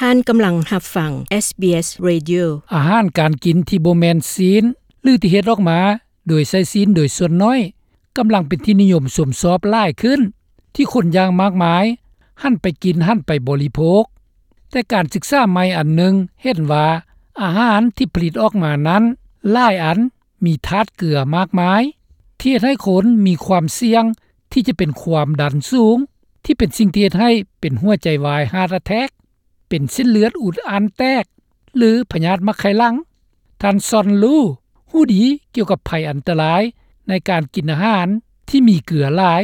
ທ່ານກຳລັງຮັບຟັງ ເອສບີເອສ Radio. ອາຫານການກິນທີ່ບໍ່ແມ່ນຊີ້ນ ຫຼື ທີ່ເຮັດອອກມາໂດຍໃຊ້ຊີ້ນໂດຍສ່ວນໜ້ອຍ ກຳລັງເປັນທີ່ນິຍົມຊົມຊອບຫຼາຍຂຶ້ນ ທີ່ຄົນຢ່າງມາກມາຍຫັນໄປກິນ, ຫັນໄປບໍລິໂພກ. ແຕ່ການສຶກສາໃໝ່ອັນໜຶ່ງເຫັນວ່າ ອາຫານທີ່ຜະລິດອອກມານັ້ນ ຫຼາຍອັນມີທາດເກືອມາກມາຍ ທີ່ເຮັດໃຫ້ຄົນມີຄວາມສ່ຽງທີ່ຈະເປັນຄວາມດັນສູງ ທີ່ເປັນສິ່ງທີ່ເຮັດໃຫ້ເປັນຫົວໃຈວາຍ Heart Attack, ເປັນເສັ້ນເລືອດອຸດອັ່ນແຕກ ຫຼື ພະຍາດໝາກໄຂ່ຫຼັງ. ທ່ານ ຊອນ ລູ ຮູ້ດີກ່ຽວກັບໄພອັນຕະລາຍໃນການກິນອາຫານທີ່ມີເກືອຫຼາຍ.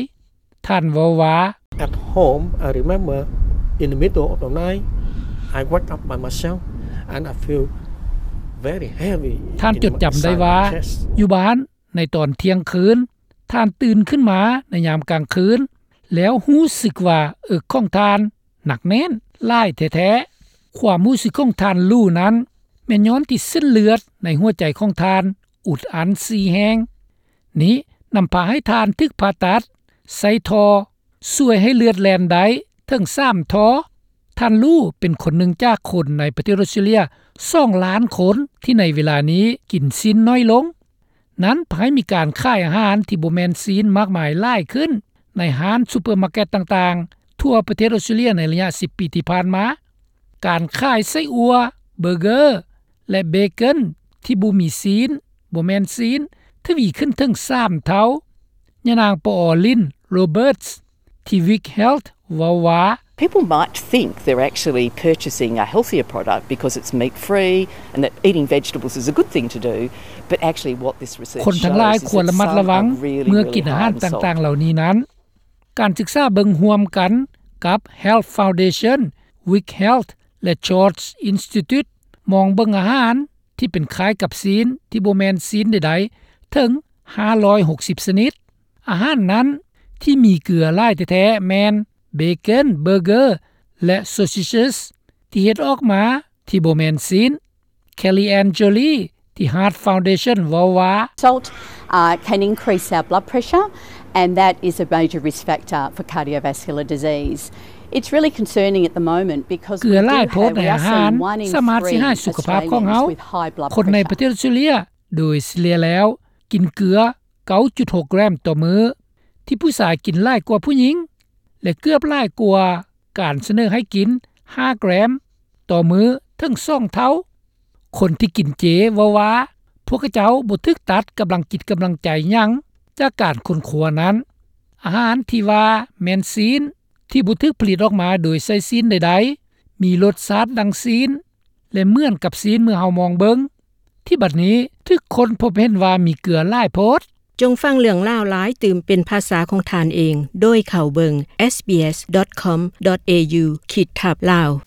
ທ່ານເວົ້າວ່າ At home, I remember in the middle of the night, I wake up by myself and I feel very heavy. ທ່ານຈົດຈຳໄດ້ວ່າ ຢູ່ບ້ານໃນຕອນທ່ຽງຄືນ ທ່ານຕື່ນຂຶ້ນມາໃນຍາມກາງຄືນ ແລ້ວຮູ້ສຶກວ່າເອິກຂອງທ່ານໜັກແໜ້ນຫຼາຍແທ້ໆ. ຄວາມຮູ້ສຶກຂອງທ່ານ ລູ ນັ້ນ ແມ່ນຍ້ອນທີ່ເສັ້ນເລືອດໃນຫົວໃຈຂອງທ່ານອຸດອັ່ນສີ່ແຫ່ງ. ນີ້ນຳພາໃຫ້ທ່ານຖືກຜ່າຕັດໃສ່ທໍ່ ຊ່ວຍໃຫ້ເລືອດແລ່ນໄດ້ເຖິງສາມທໍ່. ທ່ານ ລູ ເປັນຄົນໜຶ່ງຈາກຄົນໃນປະເທດອອສເຕຣເລຍສອງລ້ານຄົນ ທີ່ໃນເວລານີ້ກິນຊີ້ນໜ້ອຍລົງ. ນັ້ນພາໃຫ້ມີການຂາຍອາຫານທີ່ບໍ່ແມ່ນຊີ້ນມາກມາຍຫຼາຍຂຶ້ນ ໃນຮ້ານຊຸບເປີມາເກັດຕ່າງໆ ທົ່ວປະເທດອອສເຕຣເລຍໃນໄລຍະສິບປີທີ່ຜ່ານມາ. ການຂາຍໄສ້ອົ່ວ, ເບີເກີ ແລະ ເບເກີນທີ່ບໍ່ມີຊີ້ນ, ບໍ່ແມ່ນຊີ້ນ ທະວີຂຶ້ນເຖິງສາມເທົ່າ. ຍານາງ ປອ ລິນ ໂຣເບີດ ທີ່ Wick Health ເວົ້າວ່າ People might think they're actually purchasing a healthier product because it's meat free and that eating vegetables is a good thing to do, but actually what this research shows is that some are really, really high in salt. ຄົນທັງຫຼາຍຄວນລະມັດລະວັງເມື່ອກິນອາຫານຕ່າງໆເຫຼົ່ານີ້ນັ້ນ. ການສຶກສາເບິ່ງຮ່ວມກັນກັບ Health Foundation, Wick Health ແລະ George Institute ມອງເບິ່ງອາຫານທີ່ເປັນຄ້າຍກັບຊີ້ນທີ່ບໍ່ແມ່ນຊີ້ນໃດໆເຖິງຫ້າຮ້ອຍຫົກສິບຊະນິດ. ອາຫານນັ້ນທີ່ມີເກືອຫຼາຍແທ້ໆແມ່ນ ເບເກີນ, ເບີເກີ ແລະ sausages ທີ່ເຮັດອອກມາທີ່ບໍ່ແມ່ນຊີ້ນ. Kelly Ann Jolie ທີ່ Heart Foundation ເວົ້າວ່າ Salt, uh, can increase our blood pressure, and that is a major risk factor for cardiovascular disease. It's really concerning at the moment because we do have, we are seeing one in three Australians with high blood pressure. ເກືອຫຼາຍໂພດໃນອາຫານສາມາດເຮັດໃຫ້ສຸຂະພາບຂອງເຮົາ. ຄົນໃນປະເທດອອສເຕຣເລຍໂດຍສະເລ່ຍແລ້ວກິນເກືອເກົ້າຈຸດຫົກແກຣມຕໍ່ມື້ ທີ່ຜູ້ຊາຍກິນຫຼາຍກວ່າຜູ້ຍິງ ແລະ ເກືອບຫຼາຍກວ່າການສະເໜີໃຫ້ກິນຫ້າແກຣມຕໍ່ມື້ເຖິງສອງເທົ່າ. ຄົນທີ່ກິນເຈເວົ້າວ່າ ພວກເຂົາເຈົ້າບໍ່ຖືກຕັດກຳລັງຈິດກຳລັງໃຈຫຍັງຈາກການຄົ້ນຄວ້ານັ້ນ. ອາຫານທີ່ວ່າແມ່ນຊີ້ນ ທີ່ບໍ່ຖືກຜະລິດອອກມາໂດຍໃຊ້ຊີ້ນໃດໆ ມີລົດຊາດດັ່ງຊີ້ນ ແລະ ເໝືອນກັບຊີ້ນເມື່ອເຮົາມອງເບິ່ງ ທີ່ບັດນີ້ຖືກຄົ້ນພົບເຫັນວ່າມີເກືອຫຼາຍໂພດ. ຈົ່ງຟັງເລື່ອງລາວຫຼາຍຕື່ມເປັນພາສາຂອງທ່ານເອງ ໂດຍເຂົ້າເບິ່ງ SBS.com.au ຂີດທັບ Lao.